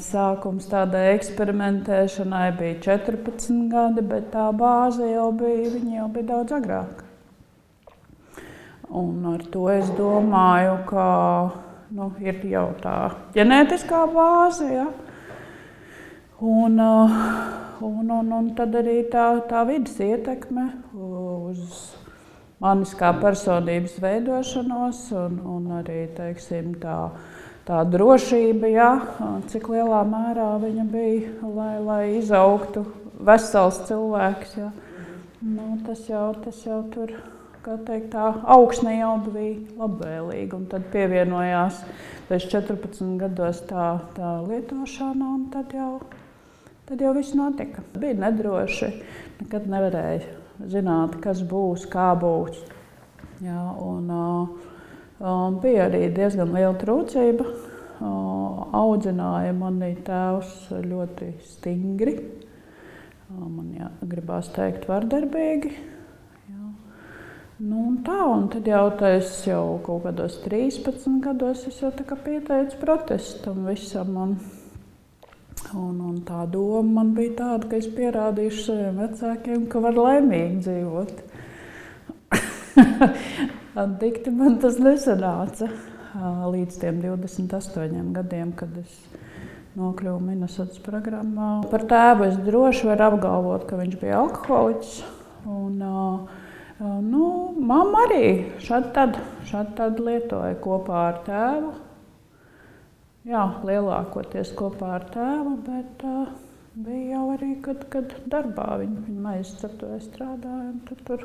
Sākums tādai eksperimentēšanai bija 14 gadi, bet tā bāze jau bija daudz agrāk. Un ar to es domāju, ka ir jau tā ģenētiskā bāze, ja? Un tad arī tā vidas ietekme uz manis kā personības veidošanos un arī, teiksim, tā drošība, ja, cik lielā mērā viņa bija, lai izaugtu vesels cilvēks. Ja. Tas jau tur, kā teikt, tā augsne jau bija labvēlīga. Un tad pievienojās pēc 14 gados tā lietošana, un tad jau viss notika. Bija nedroši, nekad nevarēja zināt, kas būs, kā būs. Ja, bija arī diezgan liela trūcība. Audzināja mani tēvs ļoti stingri. Man gribās teikt vardarbīgi. Jā. Un tad es jau kaut kādos 13 gados es jau tā kā pieteicu protestam visam. Un tā doma man bija tāda, ka es pierādīšu saviem vecākiem, ka var laimīgi dzīvot. Dikti man tas nesanāca līdz tiem 28 gadiem, kad es nokļuvu Minnesotas programmā. Par tēvu es droši varu apgalvot, ka viņš bija alkoholiķis. Mamma arī šādi tad lietoja kopā ar tēvu. Jā, lielākoties kopā ar tēvu, bet bija jau arī, kad darbā viņa maizceptoja strādāja. Tur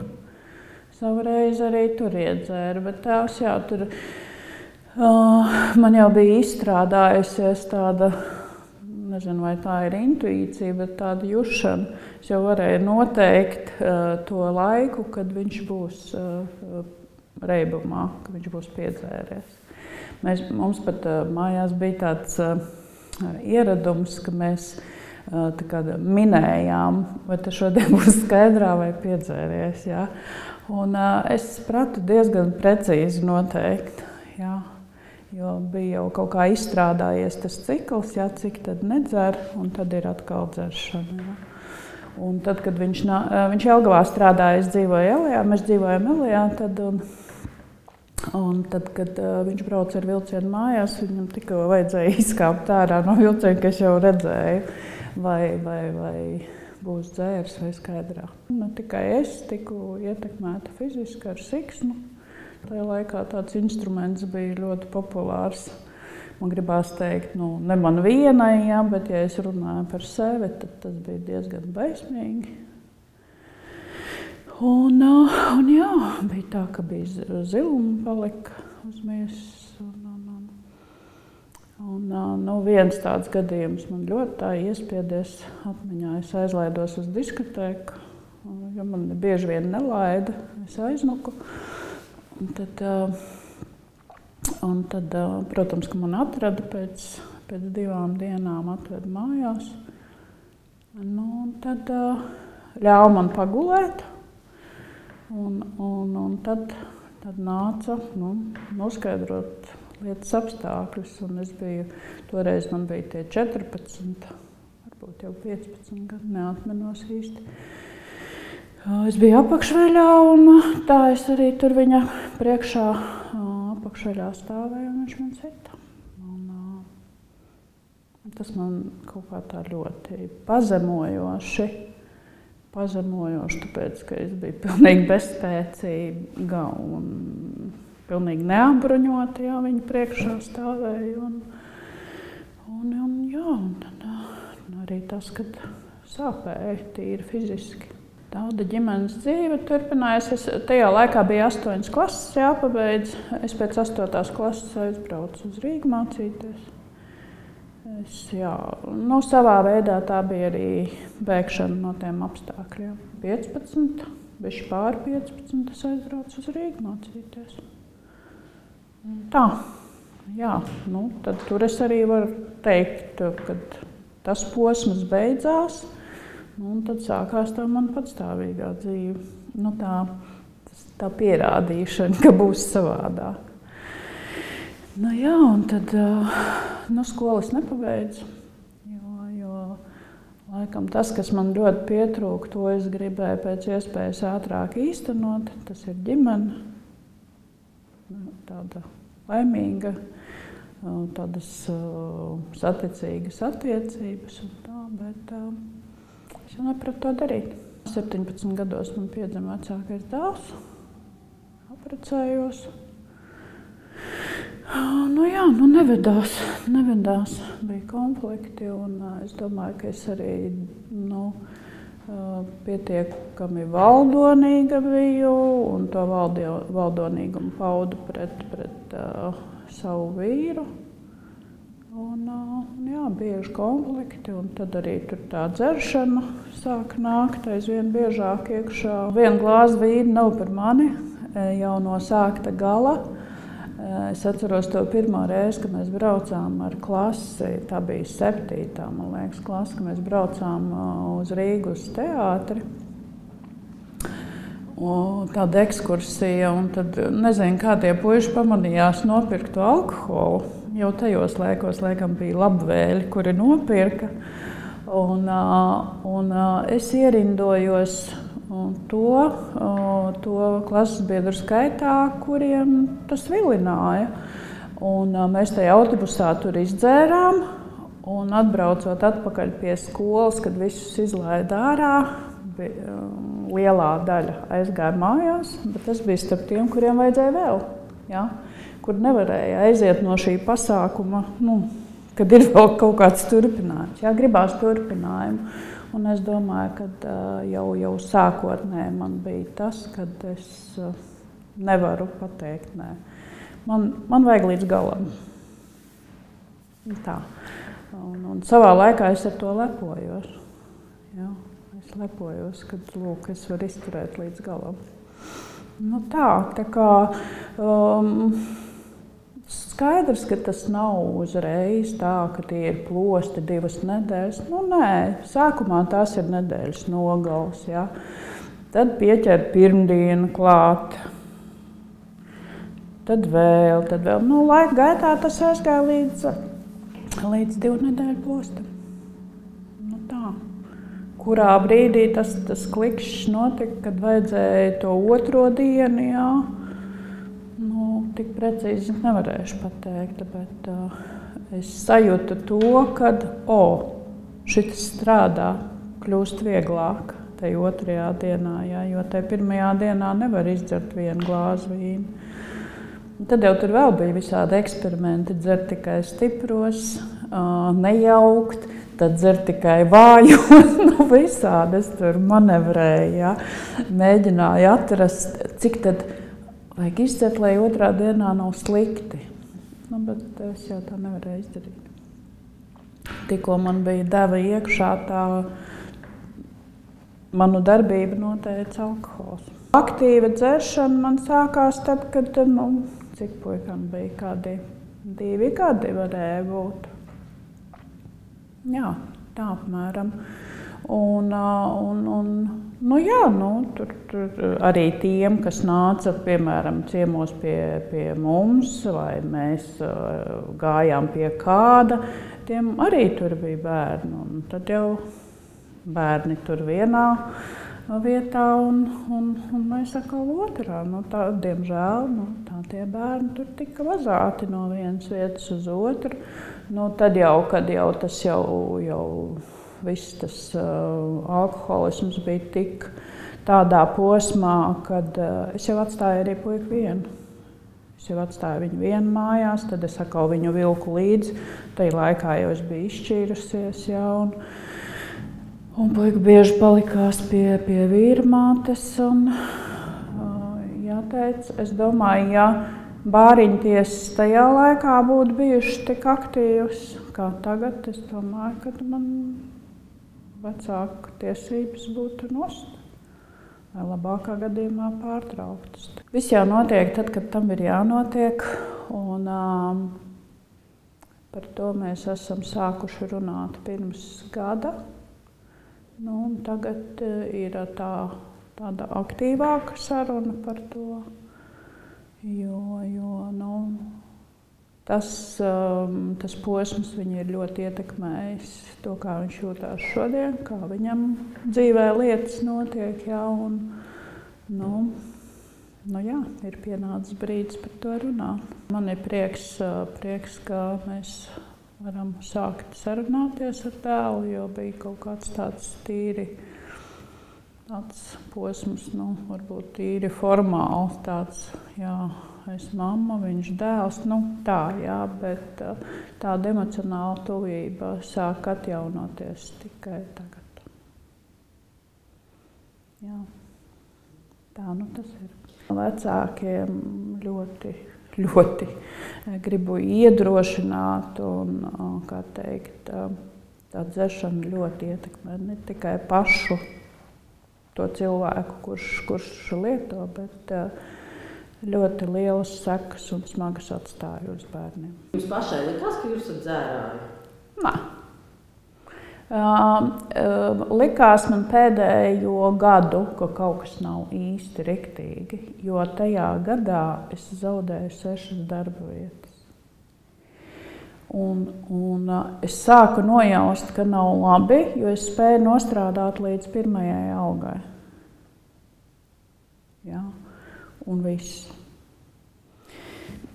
savu reizi arī tur iedzēra, bet tēvs tur man jau bija izstrādājusies tāda, nezinu, vai tā ir intuīcija, bet tāda jušana. Es jau varēju noteikt to laiku, kad viņš būs reibumā, kad viņš būs piedzēries. Mums pat mājās bija tāds ieradums, ka mēs minējām, vai tas šodien būs skaidrā vai piedzēries. Ja? Un es pratu diezgan precīzi noteikt, ja? Jo bija jau kaut kā izstrādājies tas cikls, ja? Cik tad nedzer, un tad ir atkal dzeršana. Ja? Un tad, kad viņš Jelgavā strādāja, es dzīvoju Elijā, mēs dzīvojam Elijā, un tad, kad viņš brauca ar vilcienu mājās, viņam tikko vajadzēja izkāpt ārā no vilciena, ka es jau redzēju, vai būs dzērs vai skaidrā. Ne tikai es tiku ietekmēta fiziski ar siksnu. Tajā laikā tāds instruments bija ļoti populārs. Man gribās teikt, ne man vienai, ja, bet ja es runāju par sevi, tad tas bija diezgan baismīgi. Un jā, bija tā, ka bija ziluma palika uz miesas. Viens tāds gadījums man ļoti tā iespiedies atmiņā. Es aizlaidos uz diskotēku, jo man bieži vien nelaida. Es aiznuku. Un tad, protams, ka man atrada pēc 2 dienām atveda mājās. Un tad ļāva man pagulēt. Un tad nāca noskaidrot lietas apstākļus. Un toreiz man bija tie 14, varbūt jau 15 gadi, neatmenos īsti. Es biju apakšveļā, un tā es arī tur viņa priekšā apakšveļā stāvēju, un viņš man sita. Tas man kaut kā tā ļoti pazemojoši, tāpēc, ka es biju pilnīgi bezspēcīga un pilnīgi neapbruņota, jā, viņa priekšā stāvēju. Un tad arī tas, kad sāpēja tīri fiziski. Tāda ģimenes dzīve turpinājās. Tajā laikā bija 8 klases jāpabeidz. Es pēc 8. klases aizbraucu uz Rīgu mācīties. Savā veidā tā bija arī bēgšana no tiem apstākļiem. 15, bišķi pār 15, es aizbraucu uz Rīgu mācīties. Tā, jā, tad tur es arī varu teikt, kad tas posms beidzās. Un tad sākās tā man patstāvīgā dzīve. Tā pierādīšana, ka būs savādāk. Un tad skolas nepabeidzu. Laikam tas, kas man ļoti pietrūka, to es gribēju pēc iespējas ātrāk īstenot, tas ir ģimene. Tāda laimīga, tādas saticīgas attiecības un tā, bet es jau nepratu to darīt. 17 gados man piedzima vecākais dēls, apprecējos. Nevedās, bija konflikti, un es domāju, ka es arī pietiekami valdonīga biju, un to valdonīgumu paudu pret savu vīru. Un bieži konflikti, un tad arī tur tā dzeršana sāk nākt aizvien biežāk iekšā. Viena glāze vīna nav par mani, jau no sākta gala. Es atceros to pirmo reizi, kad mēs braucām ar klasi, tā bija 7. man liekas, klasi, kad mēs braucām uz Rīgu uz teātri. Tāda ekskursija, un tad nezinu, kā tie puiši pamanījās nopirkt to alkoholu. Jau tajos laikos, laikam, bija labvēļi, kuri nopirka. Un es ierindojos to klases biedru skaitā, kuriem tas vilināja. Un mēs tajā autobusā tur izdzērām, un atbraucot atpakaļ pie skolas, kad visus izlaida ārā, lielā daļa aizgāja mājās, bet tas bija starp tiem, kuriem vajadzēja vēl, ja? Kur nevarēja aiziet no šī pasākuma, kad ir vēl kaut kāds turpinājums. Jā, gribās turpinājumu. Un es domāju, ka jau sākotnēji man bija tas, kad es nevaru pateikt nē. Man vajag līdz galam. Tā. Un savā laikā es ar to lepojos. Jā, es lepojos, kad lūk, es varu izturēt līdz galam. Tā kā skaidrs, ka tas nav uzreiz tā, ka tie ir plosti 2 nedēļas. Nē, sākumā tās ir nedēļas nogals, ja. Tad pieķer pirmdienu klāt, tad vēl. Laika gaitā tas aizgāja līdz 2 nedēļu postam. Tā. Kurā brīdī tas klikšķis notika, kad vajadzēja to 2. dienu, jā. Tik precīzi nevarēšu pateikt, bet es sajūtu to, ka šitas strādā, kļūst vieglāk tajā 2. dienā, jā, jo tajā 1. dienā nevar izdzert 1 glāzi vīnu. Tad jau tur vēl bija visādi eksperimenti, dzert tikai stipros, nejaukt, tad dzert tikai vājos, visādi es tur manevrēju, jā, mēģināju atrast, cik tad vajag izdzert, lai 2. dienā nav slikti. Bet es jau tā nevarēju izdarīt. Tikko man bija deva iekšā, tā manu darbību noteica alkohols. Aktīva dzeršana man sākās tad, kad, cik puikam bija, kādi 2 gadi varēja būt. Jā, tā apmēram. Tur arī tiem, kas nāca, piemēram, ciemos pie mums, vai mēs gājām pie kāda, tiem arī tur bija bērni. Un tad jau bērni tur vienā vietā, un mēs atkal otrā. Tā, diemžēl, tie bērni tur tika vazāti no vienas vietas uz otru. Tad jau, kad jau tas viss tas alkoholisms bija tik tādā posmā, kad es jau atstāju arī puiku vienu. Es jau atstāju viņu vienu mājās, tad es atkal viņu vilku līdzi. Tajā laikā jau es biju izšķīrusies, jā, un puika bieži palikās pie vīra mātes. Jāteic, es domāju, ja bāriņtiesas tajā laikā būtu bijušas tik aktīvas kā tagad, es domāju, ka man vecāku tiesības būtu nost, vai labākā gadījumā pārtrauktas. Viss jau notiek tad, kad tam ir jānotiek, un par to mēs esam sākuši runāt pirms gada. Tagad ir tāda aktīvāka saruna par to, jo tas posms viņu ir ļoti ietekmējis to, kā viņš jūtās šodien, kā viņam dzīvē lietas notiek. Jā, un, jā, ir pienācis brīdis par to runāt. Man ir prieks, ka mēs varam sākt sarunāties ar tēvu, jo bija kaut kāds tāds posms, varbūt tīri formāli tāds, jā, es mamma, viņš dēls, tā, jā, bet tāda emocionāla tuvība sāk atjaunoties tikai tagad. Jā, tā tas ir. Vecākiem ļoti gribu iedrošināt un, kā teikt, tā dzeršana ļoti ietekmē ne tikai pašu to cilvēku, kurš lieto, bet ļoti lielas sekas un smagas atstāja uz bērniem. Jums pašai likās, ka jūs esat dzērāji? Nē. Likās man pēdējo gadu, ka kaut kas nav īsti riktīgi, jo tajā gadā es zaudēju 6 darba vietas. Un es sāku nojaust, ka nav labi, jo es spēju nostrādāt līdz 1. algai. Jā, un viss.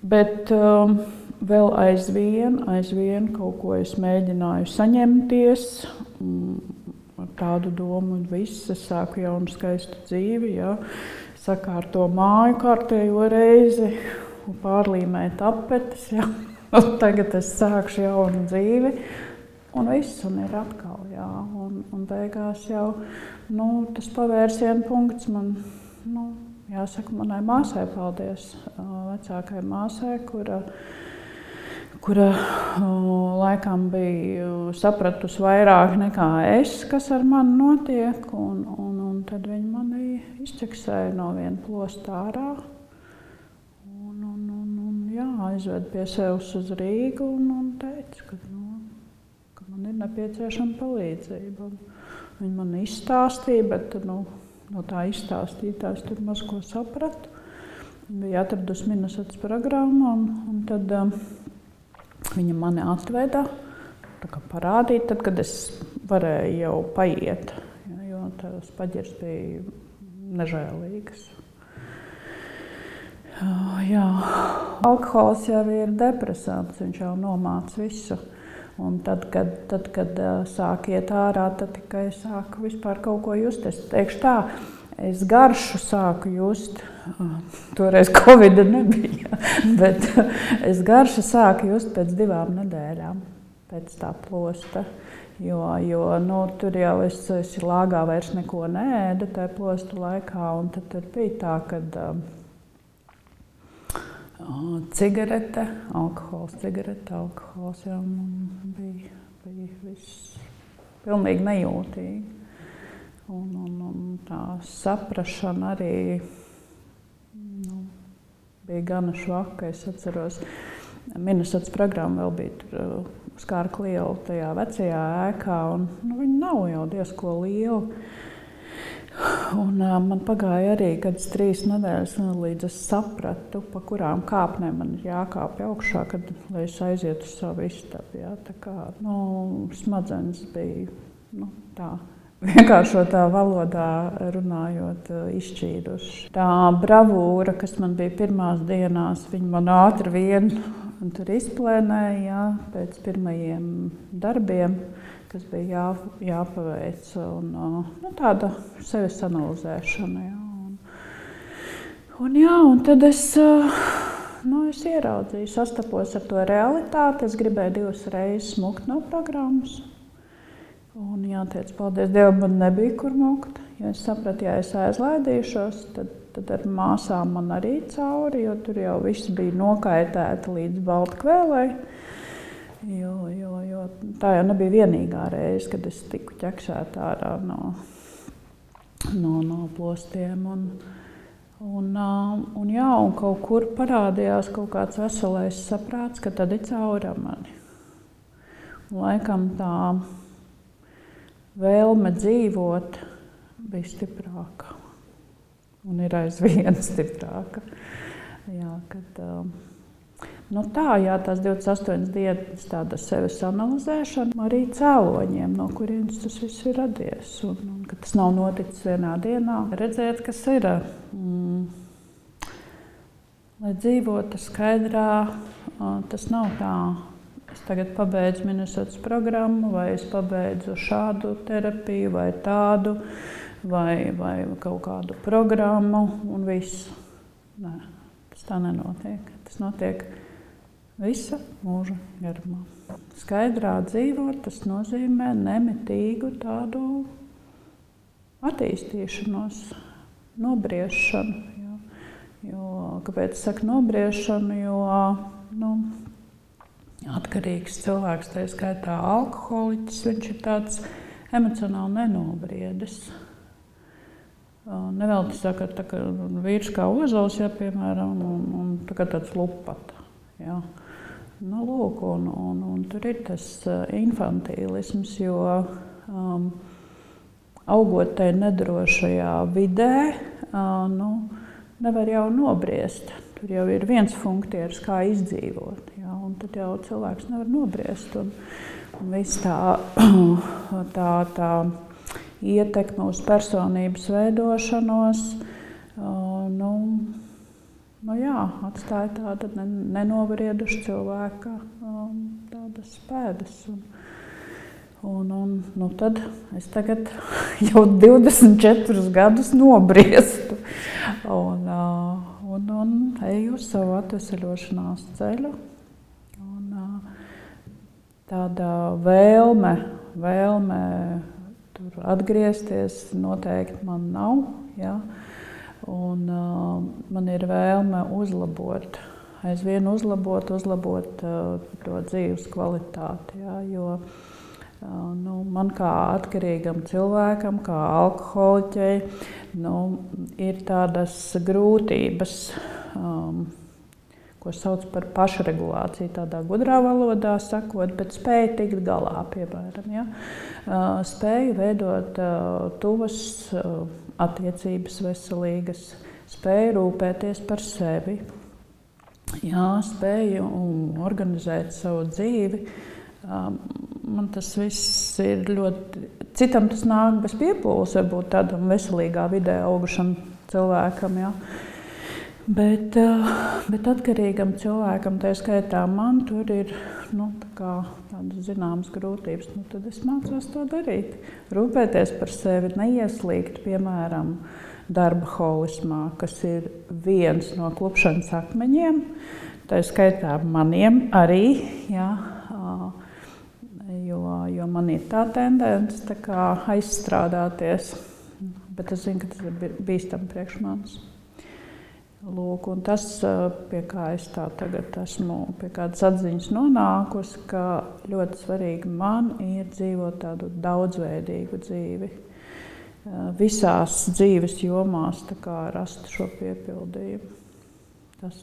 Bet vēl aizvien kaut ko es mēģināju saņemties ar tādu domu, un viss, es sāku jaunu skaistu dzīvi, jā, sakārto māju kārtējo reizi, un pārlīmēt tapetes, jā. Un tagad es sākšu jaunu dzīvi, un viss, un ir atkal, jā, un beigās jau, tas pavērsienu punkts man, jāsaka manai māsai paldies, vecākai māsai, kura laikam bija sapratusi vairāk nekā es, kas ar mani notiek, un tad viņa mani izķeksēja no viena plosta ārā. Jā, aizved pie sevis uz Rīgu un teica, ka man ir nepieciešama palīdzība. Viņa man izstāstīja, bet no tā izstāstītājs tur maz ko sapratu. Viņa bija atradusi Minnesotas programmu, un tad viņa mani atveda, parādīja, tad, kad es varēju jau paiet, jo tās paģirs bija nežēlīgas. Jā, alkohols jau ir depresants, viņš jau nomāc visu. Un tad, kad sāk iet ārā, tad tikai sāku vispār kaut ko just. Es teikšu tā, es garšu sāku just, toreiz Covida nebija, bet es garšu sāku just pēc 2 nedēļām, pēc tā plosta. Jo tur jau es lāgā vairs neko neēdu tajā plosta laikā, un tad bija tā, kad cigarete, alkohols, jā, man bija viss pilnīgi nejūtīgi. Un tā saprašana arī bija gana švaka. Es atceros, Minnesotas programma vēl bija tur uz Kārka liela tajā vecajā ēkā, un viņa nav jau diezko liela. Un man pagāja arī kādas 3 nedēļas, līdz es sapratu, pa kurām kāpnēm man ir jākāpj augšā, lai es aizietu uz savu istabu. Jā. Tā kā, smadzenes bija tā vienkāršotā valodā runājot izšķīduši. Tā bravūra, kas man bija pirmās dienās, viņa man ātri vien tur izplēnēja, jā, pēc pirmajiem darbiem, kas bija jāpaveic, un tāda sevis analizēšana. Jā. Un tad es ieraudzīju, sastapos ar to realitāti. Es gribēju 2 reizes mukt no programmas. Un jāteic, paldies Dievam, man nebija kur mukt. Jo es sapratu, ja es aizlaidīšos, tad ar māsām man arī cauri, jo tur jau viss bija nokaitēta līdz Baltkvēlei. Jo tā jau nebija vienīgā reize, kad es tiku ķeksēta ārā no plostiem. Un kaut kur parādījās kaut kāds veselais saprāts, ka tad ir cauri mani. Un laikam tā vēlme dzīvot bija stiprāka. Un ir aizvien stiprāka. Jā, kad Nu tā, jā, tās 28 dienas tāda sevis analizēšana, arī cēloņiem, no kurienes tas viss ir radies. Un ka tas nav noticis vienā dienā. Redzēt, kas ir, lai dzīvotu skaidrā, tas nav tā. Es tagad pabeidzu Minnesotas programmu, vai es pabeidzu šādu terapiju, vai tādu, vai kaut kādu programmu, un viss. Nē, tas tā nenotiek. Tas notiek visa mūža garumā. Skaidrā dzīvot, tas nozīmē nemitīgu tādu attīstīšanos, nobriešanu. Kāpēc es saku nobriešanu? Jo atkarīgs cilvēks, tā skaitā alkoholiķis, viņš ir tāds emocionāli nenobriedis. Nevelti saka, tā kā vīrs kā ozols, piemēram, un tāds lupata. Jā. Nu, lūk, un tur ir tas infantīlisms, jo augot tai nedrošajā vidē, nevar jau nobriest. Tur jau ir viens funkcijas, kā izdzīvot, jā, un tad jau cilvēks nevar nobriest. Un viss tā ietekme uz personības veidošanos, atstāja tāda nenobrieduša cilvēka tādas pēdas. Tad es tagad jau 24 gadus nobriestu un eju uz savu atveseļošanās ceļu. Tāda vēlme tur atgriezties noteikti man nav. Ja? Un man ir vēlme aizvien uzlabot to dzīves kvalitāti. Ja? Jo man kā atkarīgam cilvēkam, kā alkoholiķei, ir tādas grūtības, ko sauc par pašregulāciju, tādā gudrā valodā sakot, bet spēju tikt galā, piemēram. Ja? Spēju veidot tuvas attiecības veselīgas, spēju rūpēties par sevi, spēju organizēt savu dzīvi. Man tas viss ir ļoti... Citam tas nāk bez piepūles, varbūt tādam veselīgā vidē augušam cilvēkam. Ja? Bet atkarīgam cilvēkam, tā skaitā man, tur ir tādas zināmas grūtības. Tad es mācos to darīt. Rūpēties par sevi, neieslīgt, piemēram, darba holismā, kas ir viens no klupšanas akmeņiem. Tā skaitā maniem arī, jā, jo man ir tā tendence aizstrādāties. Bet es zinu, ka tas ir bīstami priekš manis. Lūk, un tas, pie kā es tā tagad esmu, pie kādas atziņas nonākusi, ka ļoti svarīgi man ir dzīvot tādu daudzveidīgu dzīvi. Visās dzīves jomās rast šo piepildījumu. Tas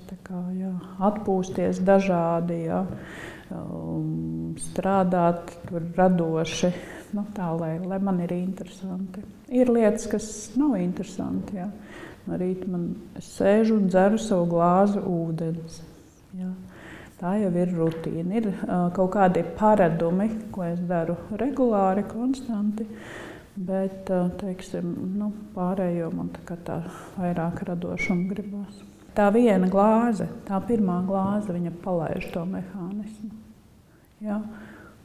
atpūsties dažādi, strādāt radoši, tā, lai man ir interesanti. Ir lietas, kas nav interesanti. Ja. No rīta es sēžu un dzeru savu glāzi ūdens. Ja. Tā jau ir rutīna. Ir kaut kādi paradumi, ko es daru regulāri, konstanti, bet, pārējo man tā vairāk radošumu gribās. Tā viena glāze, tā pirmā glāze, viņa palaiž to mehānismu. Ja?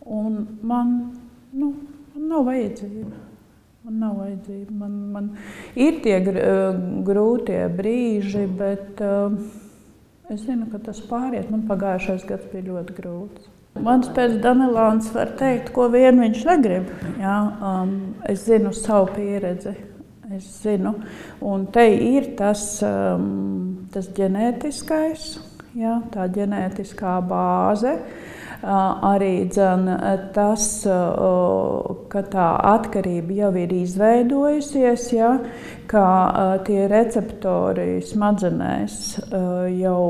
Un man nav vajadzība. Man ir tie grūtie brīži, bet es zinu, ka tas pāriet. Man pagājušais gads bija ļoti grūts. Mans pēc Danelāns var teikt, ko vien viņš negrib. Ja? Es zinu savu pieredzi. Es zinu, un te ir tas ģenētiskais, ja, tā ģenētiskā bāze, arī tas, ka tā atkarība jau ir izveidojusies, ja, ka tie receptori smadzenēs jau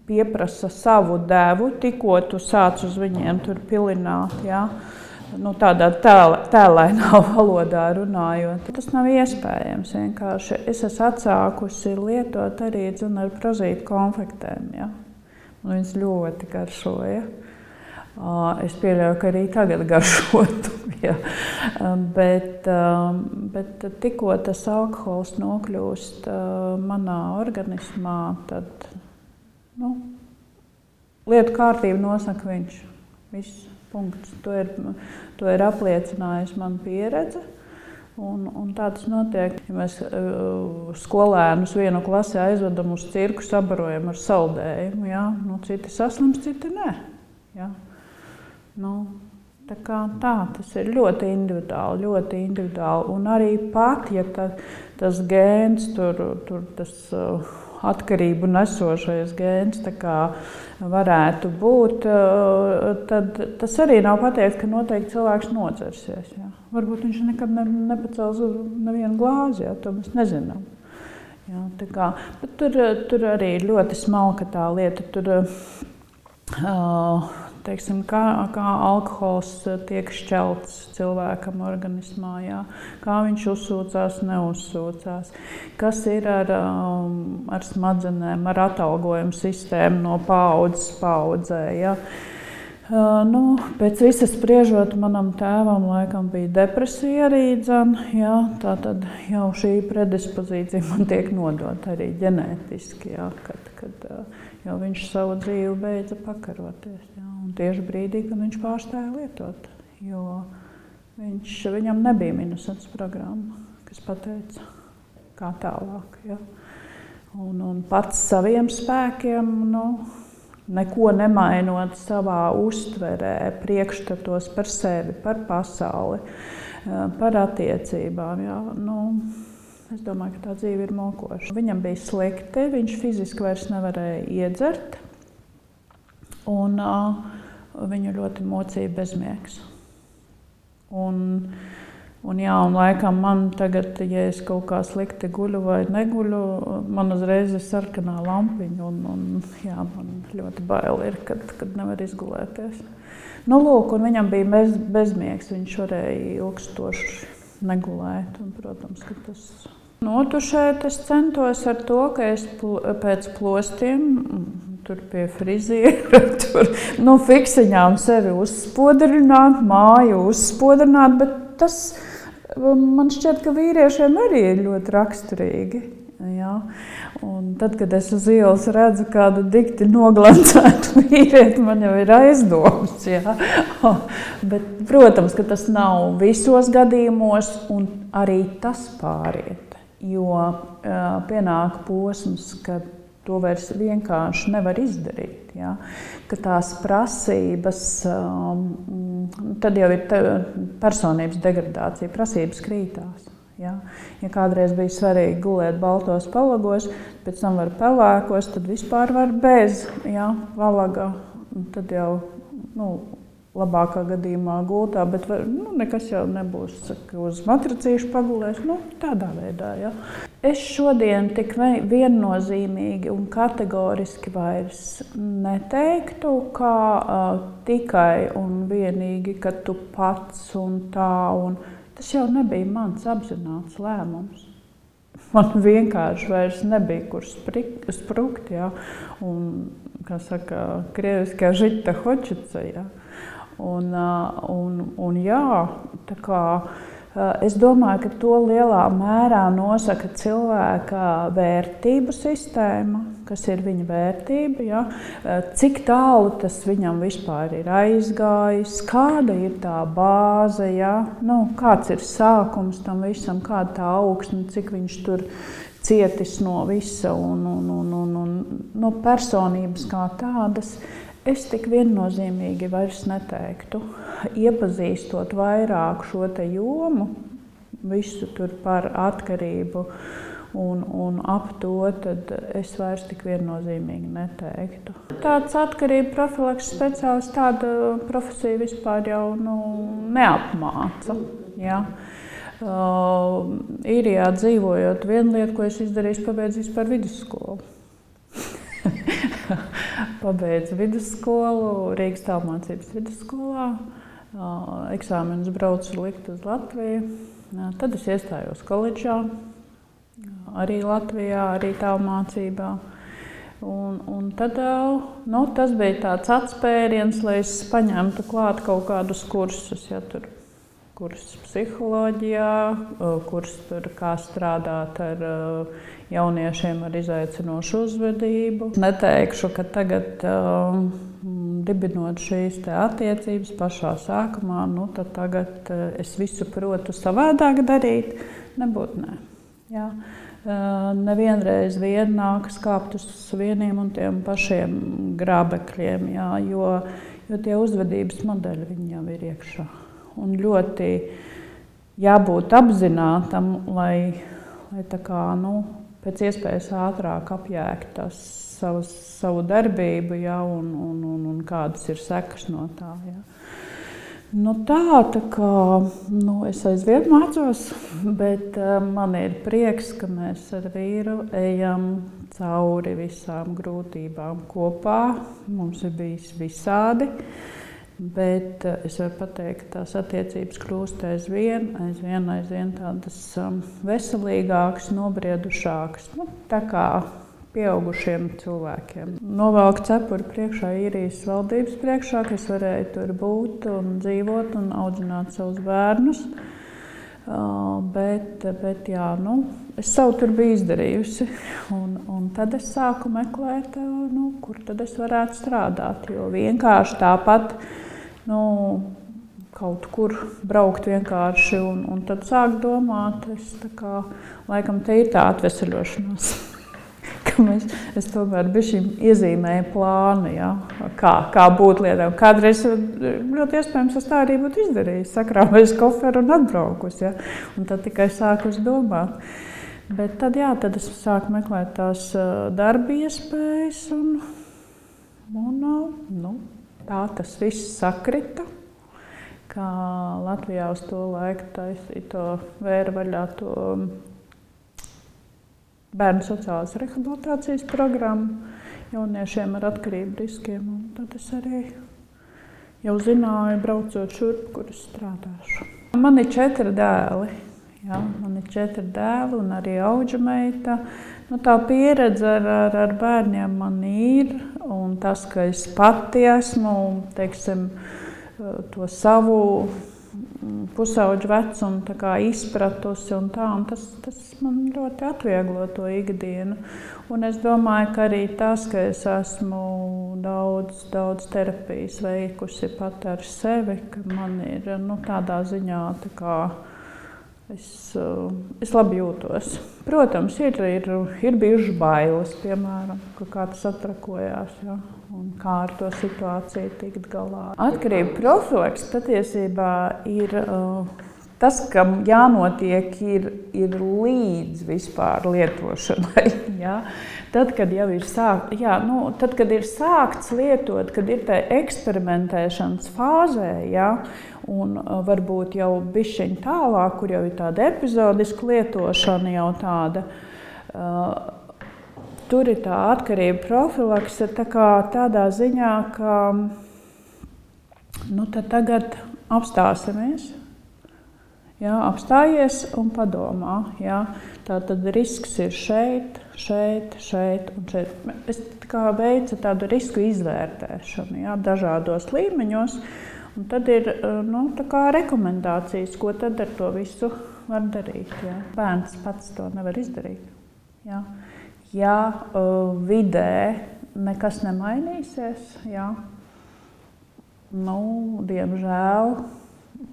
pieprasa savu devu, tikko tu sāc uz viņiem tur pilināt. Ja. Tādā tēlainā valodā runājot. Tas nav iespējams vienkārši. Es esmu atsākusi lietot arī ar prozītu konfektēm. Ja? un viņas ļoti garšoja. Es pieļauju, ka arī tagad garšotu, ja. Bet tikko tas alkohols nokļūst manā organismā, tad lietu kārtību nosaka viņš. Viss, punkts. To ir apliecinājusi mana pieredze. Un tā tas notiek. Ja mēs skolēnus vienu klasi aizvedam uz cirku, sabarojam ar saldējumu, ja? Citi saslims, citi nē. Ja? Tā, tas ir ļoti individuāli. Un arī pat, ja tas gēns, tas atkarību nesošais gēns varētu būt, tad tas arī nav pateikts, ka noteikti cilvēks nodzersies. Ja? Varbūt viņš nekad nepacels nevienu glāzi, ja? To mēs nezinām. Ja? Bet tur arī ļoti smalka tā lieta. Teiksim, kā alkohols tiek šķelts cilvēkam organismā, jā. Kā viņš uzsūcās, neuzsūcās, kas ir ar smadzenēm, ar atalgojumu sistēmu no paaudzes paaudzē. Jā. Pēc visas spriežot, manam tēvam laikam bija depresija arī, jā, tā tad jau šī predispozīcija man tiek nodota arī ģenētiski, jā, kad jau viņš savu dzīvi beidza pakaroties. Jā. Un tieši brīdī, kad viņš pārstāja lietot, jo viņam nebija minusens programma, kas pateica, kā tālāk. Ja? Un pats saviem spēkiem, neko nemainot savā uztverē, priekšstatos par sevi, par pasauli, par attiecībām. Ja? Es domāju, ka tā dzīve ir mokoša. Viņam bija slikti, viņš fiziski vairs nevarēja iedzert. Un viņu ļoti mocīja bezmiegs. Un laikam man tagad, ja es kaut kā slikti guļu vai neguļu, man uzreiz ir sarkanā lampiņa. Jā, man ļoti bail ir, kad nevar izgulēties. Lūk, un viņam bija bezmiegs, viņš varēja ilgstoši negulēt. Un, protams, ka tas... Notušēt es centos ar to, ka es pēc plostiem tur pie friziera, fiksiņām sevi uzspodrināt, māju uzspodrināt, bet tas man šķiet, ka vīriešiem arī ir ļoti raksturīgi. Ja? Un tad, kad es uz ielas redzu kādu dikti noglancētu vīrieti, man jau ir aizdomas. Ja? Bet, protams, ka tas nav visos gadījumos, un arī tas pāriet. Jo pienāk posms, kad to vairs vienkārši nevar izdarīt. Ja? Ka tās prasības, tad jau ir personības degradācija, prasības krītās. Ja? Ja kādreiz bija svarīgi gulēt baltos palagos, pēc tam var pelēkos, tad vispār var bez valaga. Tad jau labākā gadījumā gultā, bet nekas jau nebūs, ka uz matracīšu pagulēs, tādā veidā. Ja. Es šodien tik viennozīmīgi un kategoriski vairs neteiktu, kā tikai un vienīgi, ka tu pats un tā, un tas jau nebija mans apzināts lēmums. Man vienkārši vairs nebija, kur sprukt, ja, un, kā saka, krieviskā žita hočica, ja. Un jā, tā kā es domāju, ka to lielā mērā nosaka cilvēka vērtību sistēma, kas ir viņa vērtība, ja? Cik tālu tas viņam vispār ir aizgājis, kāda ir tā bāze, ja? Kāds ir sākums tam visam, kāda tā augsne, cik viņš tur cietis no visa un no personības kā tādas. Es tik viennozīmīgi vairs neteiktu, iepazīstot vairāk šo te jomu, visu tur par atkarību un ap to, tad es vairs tik viennozīmīgi neteiktu. Tāds atkarību profilakses speciālists, tāda profesija vispār jau neapmāca. Ja? Īrijā dzīvojot, viena lieta, ko es izdarīju, pabeidzu vispār vidusskolu. Pabeidzu vidusskolu, Rīgas tālmācības vidusskolā, eksāmenus braucu likt uz Latviju. Tad es iestājos koledžā, arī Latvijā, arī tālmācībā. Un tad tas bija tāds atspēriens, lai es paņemtu klāt kaut kādus kursus, tur kursus psiholoģijā, kursus tur kā strādāt ar jauniešiem ar izaicinošu uzvedību. Neteikšu, ka tagad dibinot šīs attiecības pašā sākumā, tad tagad es visu protu savādāk darīt, nebūtu nē. Jā. Nevienreiz vien nākas kāpt uz vieniem un tiem pašiem grābekļiem, jā, jo tie uzvedības modeļi viņi jau ir iekšā. Un ļoti jābūt apzinātam, lai tā kā, pēc iespējas ātrāk apjēgt savu darbību, jā, un kādas ir sekas no tā. Jā. Tā kā es aizvien mācos, bet man ir prieks, ka mēs ar vīru ejam cauri visām grūtībām kopā. Mums ir bijis visādi, bet es varu pateikt, ka tās attiecības kļūst aizvien tādas veselīgākas, nobriedušākas. Tā kā pieaugušiem cilvēkiem. Novelku cepuri priekšā īrijas valdības priekšā, ka es varēju tur būt un dzīvot un audzināt savus bērnus. Bet jā, es savu tur biju izdarījusi. Un tad es sāku meklēt, kur tad es varētu strādāt. Jo vienkārši tāpat kaut kur braukt vienkārši un tad sāk domāt, laikam te ir tā atveseļošanās. Es tomēr iezīmēju plānu, ja, kā būt lietām. Kādreiz ļoti iespējams es tā arī būtu izdarījis, sakrāvējis koferu un atbraukus. Ja, un tad tikai sāku domāt. Bet tad es sāku meklēt tās darba iespējas un tā tas viss sakrita. Kā Latvijā uz to laiku taisīja to vēra vaļā to bērnu sociālās rehabilitācijas programmu jauniešiem ar atkarību riskiem. Un tad es arī jau zināju, braucot šurp, kur es strādāšu. Man ir 4 dēli. Jā, man ir 4 dēli un arī audžameita. Tā pieredze ar bērniem man ir. Un tas, ka es pati esmu, teiksim, to savu pusauģu vecumu izpratusi un tas man ļoti atvieglo to ikdienu. Un es domāju, ka arī tas, ka es esmu daudz terapijas veikusi pat ar sevi, ka man ir tādā ziņā es labi jūtos. Protams, ir bijušas bailes, piemēram, ka kāds atrakojās, ja, un kā ar to situāciju tikt galā. Atkarību profilaks patiesībā ir tas, kam jānotiek, ir līdz vispār lietošanai. Ja. Tad, kad jau ir tad, kad ir sākts lietot, kad ir tā eksperimentēšanas fāzē, ja, un varbūt jau bišķiņ tālāk, kur jau ir tāda epizodiska lietošana jau tāda, tur ir tā atkarība profilakse tādā ziņā, ka tad tagad apstāsimies. Jā, apstājies un padomā. Jā. Tātad risks ir šeit un šeit. Es veicu tādu risku izvērtēšanu, jā, dažādos līmeņos. Un tad ir rekomendācijas, ko tad ar to visu var darīt. Jā. Bērns pats to nevar izdarīt. Jā. Ja vidē nekas nemainīsies, jā,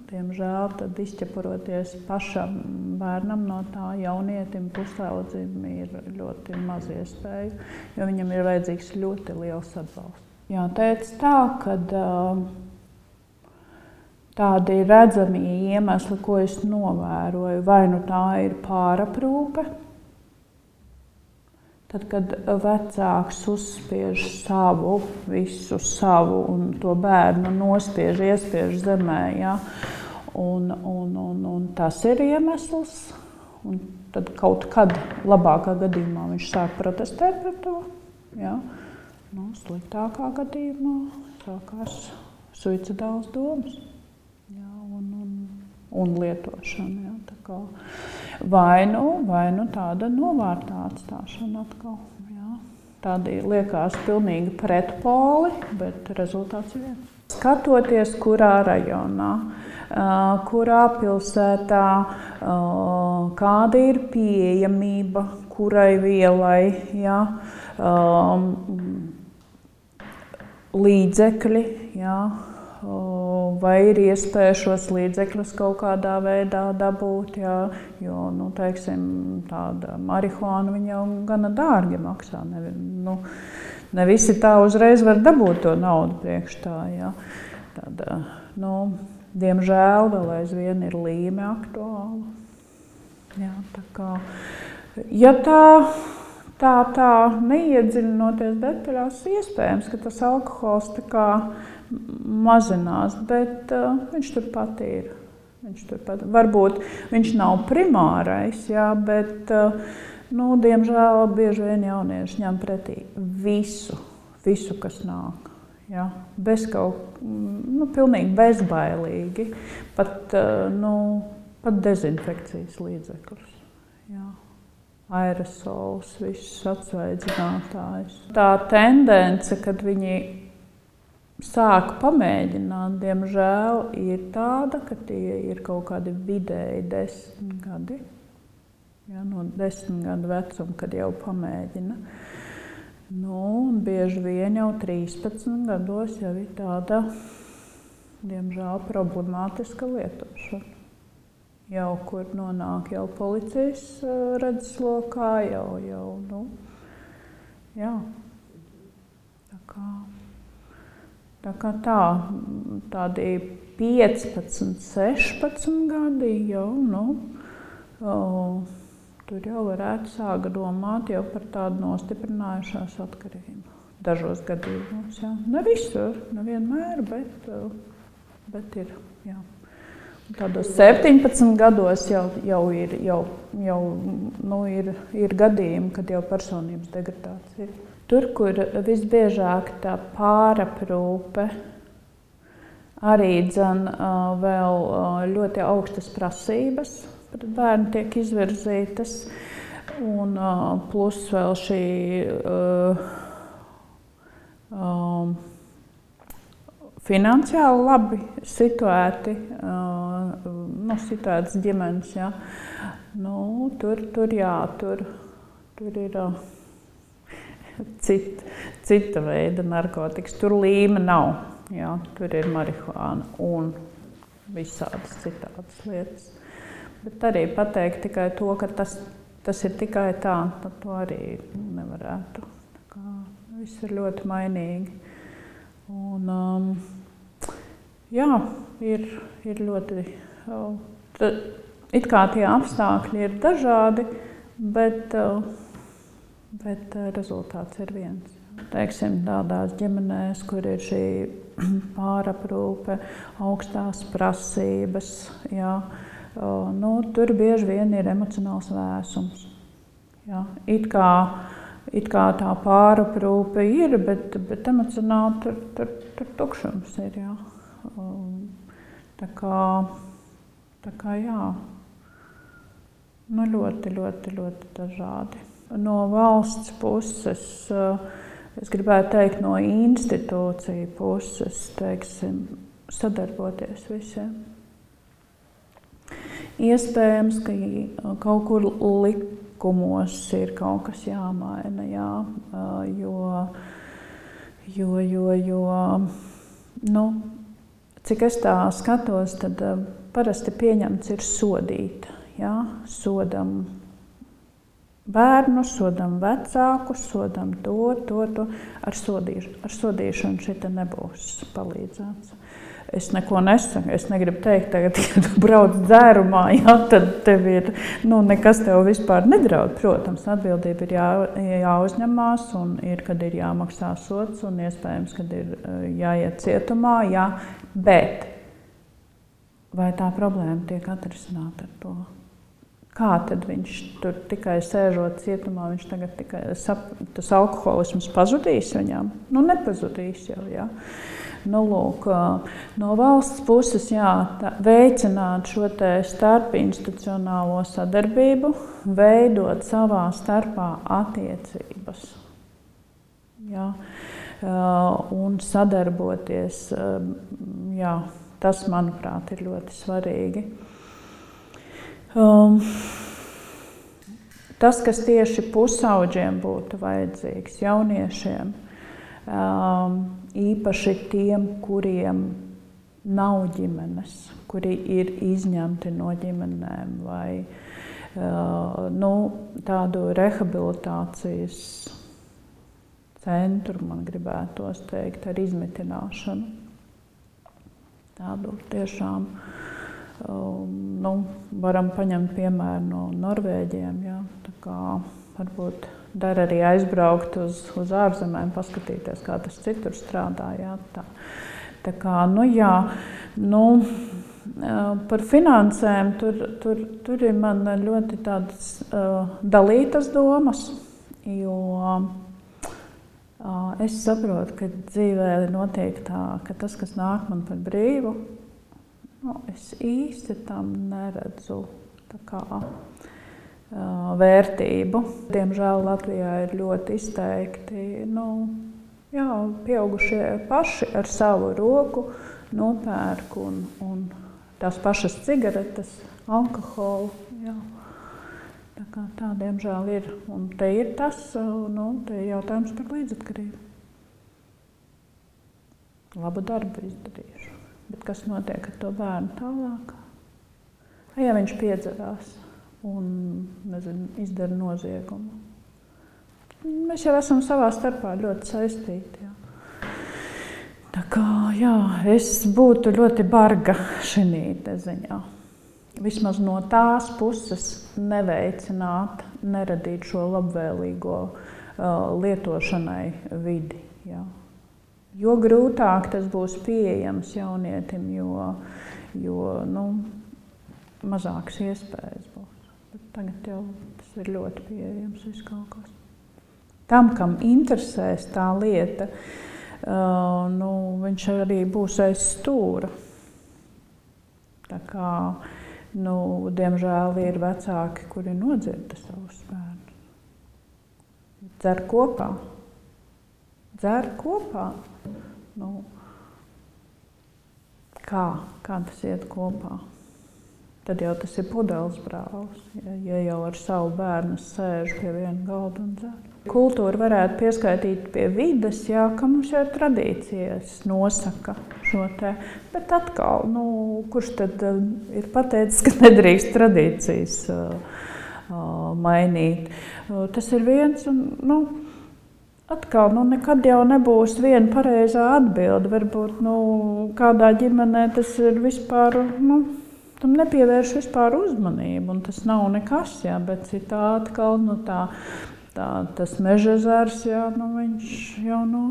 diemžēl tad izķepuroties pašam bērnam no tā jaunietim, pusaudzim ir ļoti maz iespēju, jo viņam ir vajadzīgs ļoti liels atbalsts. Jā, teica tā, ka tādi redzami iemesli, ko es novēroju, vai tā ir pāraprūpe, tad, kad vecāks uzspiež visu savu un to bērnu iespiež zemē, ja? Un tas ir iemesls. Un tad kaut kad labākā gadījumā viņš sāk protestēt par to. Ja? Sliktākā gadījumā sākās suicidālas domas, ja? un lietošana. Ja? Vai nu tāda novārtā atstāšana atkal. Jā. tādi liekas pilnīgi pretpoli, bet rezultāts ir viens. Skatoties, kurā rajonā, kurā pilsētā, kāda ir pieejamība, kurai vielai, ja, līdzekļi, ja, vai ir iespēja šos līdzekļus kaut kādā veidā dabūt, ja, jo, teiksim, tāda marihuāna viņa jau gana dārgi maksā. Ne visi tā uzreiz var dabūt to naudu priekš tā, ja. Tad, diemžēl vēl aizvien ir līme aktuāla. Jā, tā kā, ja tā neiedziļinoties detaļās, iespējams, ka tas alkohols tā kā mazinās, bet viņš turpat ir. Varbūt viņš nav primārais, jā, bet diemžēl bieži vien jaunieši ņem pretī visu, kas nāk. Jā, pilnīgi bezbailīgi, pat dezinfekcijas līdzekļus. Jā. Aerosols, visus atsvaidzinātājus. Tā tendence, kad viņi sāk pamēģināt, diemžēl, ir tāda, ka tie ir kaut kādi vidēji 10 gadi. Ja, no 10 gadu vecuma, kad jau pamēģina. Bieži vien jau 13 gados jau ir tāda, diemžēl, problemātiska lietošana. Jau kur nonāk jau policijas redzeslokā, jā. Tā kā tādi 15, 16 gadi jau, tur jau varētu sākt domāt jau par tādu nostiprinājušās atkarību. Dažos gadījumos, jā. Ne visur, nevienmēr, bet ir, jā. Tādos 17 gados jau ir gadījumi, kad jau personības degradācija. Tur, kur visbiežāk tā pāraprūpe, arī vēl ļoti augstas prasības pret bērnu tiek izvirzītas, un plus vēl šī finansiāli labi situēti, situētas ģimenes, jā. Tur ir cita veida narkotikas. Tur līme nav, jā. Tur ir marihuāna un visādas citādas lietas. Bet arī pateikt tikai to, ka tas ir tikai tā, tad to arī nevarētu. Tā kā viss ir ļoti mainīgi. Un, jā, ir ļoti, it kā tie apstākļi ir dažādi, bet rezultāts ir viens. Teiksim, tādās ģimenēs, kur ir šī pāraprūpe, augstās prasības, jā, tur bieži vien ir emocionāls vēsums. Jā, it kā tā pāraprūpe ir, bet emocionāli tur tukšums ir, jā. Tā kā jā, ļoti dažādi. No valsts puses, es gribētu teikt, no institūciju puses, teiksim, sadarboties visiem. Iespējams, ka kaut kur likumos ir kaut kas jāmaina, jā, jo, cik es tā skatos, tad parasti pieņemts ir sodīt, jā, sodam bērnus, sodam vecākus, sodam to. Ar sodīšanu šita nebūs palīdzēts. Es neko nesaku, es negribu teikt, tagad, ja tu brauc dzērumā, jā, tad tev ir, nekas tev vispār nedraud. Protams, atbildība ir jāuzņemās un kad ir jāmaksā sods un iespējams, kad ir jāiet cietumā, jā, bet vai tā problēma tiek atrisināta ar to? Kā tad viņš tur tikai sēžot cietumā, viņš tagad tikai tas alkoholisms pazudīs viņam? Nepazudīs jau, jā. Lūk, no valsts puses, jā, veicināt šo te starpinstitucionālo sadarbību, veidot savā starpā attiecības. Jā. Un sadarboties, jā, tas, manuprāt, ir ļoti svarīgi. Tas, kas tieši pusauģiem būtu vajadzīgs, jauniešiem, īpaši tiem, kuriem nav ģimenes, kuri ir izņemti no ģimenēm vai tādu rehabilitācijas centru, man gribētos teikt, ar izmitināšanu. Tādu tiešām, varam paņemt piemēru no Norvēģiem, jā, tā kā varbūt der arī aizbraukt uz ārzemēm, paskatīties, kā tas citur strādā, jā, tā kā, par finansēm tur ir man ļoti tādas dalītas domas, jo es saprotu, ka dzīvē notiek tā, ka tas, kas nāk man par brīvu, es īsti tam neredzu tā kā vērtību. Diemžēl Latvijā ir ļoti izteikti, pieaugušie paši ar savu roku nopērk un tās pašas cigaretes, alkoholu. Jā. Tā diemžēl ir. Un te ir tas, te ir jautājums par līdzatkarību. Labu darbu izdarīšu. Bet kas notiek ar to bērnu tālāk? Ja viņš piedzerās un, izdara noziegumu. Mēs jau esam savā starpā ļoti saistīti. Jā. Tā kā, jā, es būtu ļoti barga šinī ziņā. Vismaz no tās puses neveicināt, neradīt šo labvēlīgo lietošanai vidi. Jā. Jo grūtāk tas būs pieejams jaunietim, jo mazākas iespējas būs. Bet tagad jau tas ir ļoti pieejams viss kaut kas. Tam, kam interesēs tā lieta, viņš arī būs aiz stūra. Tā kā, diemžēl ir vecāki, kuri nodzirda savus bērnus. Dzer kopā. Kā tas iet kopā? Tad jau tas ir pudeles brālis, ja jau ar savu bērnu sēž pie viena galda un dzer. Kultūra varētu pieskaitīt pie vides, jā, ka mums jau tradīcijas nosaka šo te. Bet atkal, kurš tad ir pateicis, ka nedrīkst tradīcijas mainīt? Tas ir viens un, atkal, nekad jau nebūs viena pareizā atbilde. Varbūt, kādā ģimenē tas ir vispār, tam nepievērš vispār uzmanību, un tas nav nekas, jā, bet citā atkal, tas Mežezers, jā, viņš jau no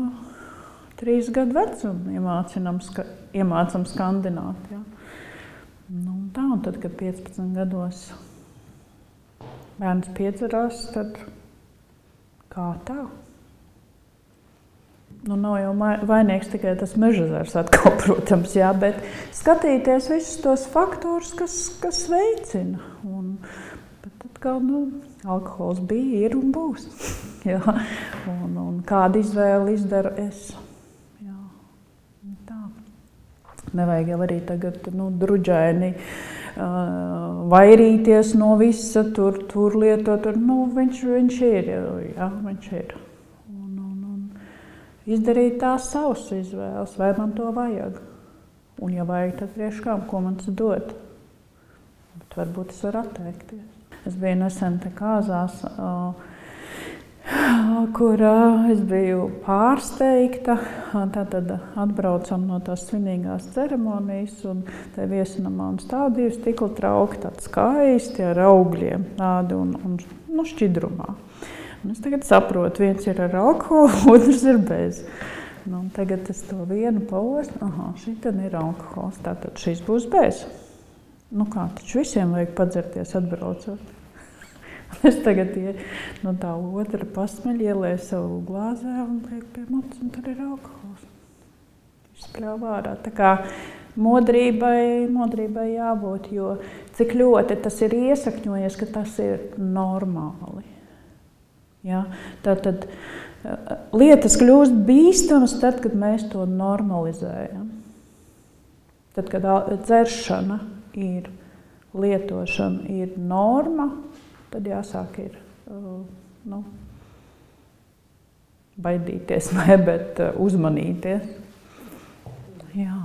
3 gadu vecuma iemācam skandināt, jā. Un tad, kad 15 gados bērns piedzerās, tad kā tā? Nav jau vainīgs tikai tas Mežezers atkal, protams, jā, bet skatīties visus tos faktorus, kas veicina. Bet atkal, alkohols bija, ir un būs. Jā. Un kādu izvēli izdaru es. Jā. Tā. Nevajag jau arī tagad druģaini vairīties no visa, tur lietot. Viņš ir, jā, viņš ir. Izdarīt tās savas izvēles, vai man to vajag. Un, ja vajag, tad priekškām, ko man tas dod. Bet varbūt es varu atteikties. Es biju nesen te Kāzās, kur es biju pārsteigta. Tātad atbraucam no tās svinīgās ceremonijas, un te viesinamā un stāv 2 stikla trauki, tādi skaisti ar augļiem, tādi un šķidrumā. Un es tagad saprotu, viens ir ar alkoholu, otrs ir bez. Tagad es to vienu paostu, šitan ir alkohols, tātad šis būs bez. Taču visiem vajag padzerties atbraucot. Es tagad tā otra pasmeļ, ielēju savu glāzē un liek pie mutes, un tur ir alkohols. Izspļāv ārā. Tā kā modrībai jābūt, jo cik ļoti tas ir iesakņojies, ka tas ir normāli. Ja? Tātad lietas kļūst bīstamas tad, kad mēs to normalizējam. Tad, kad dzeršana ir lietošana, ir norma, tad jāsāk ir baidīties, bet uzmanīties. Jā.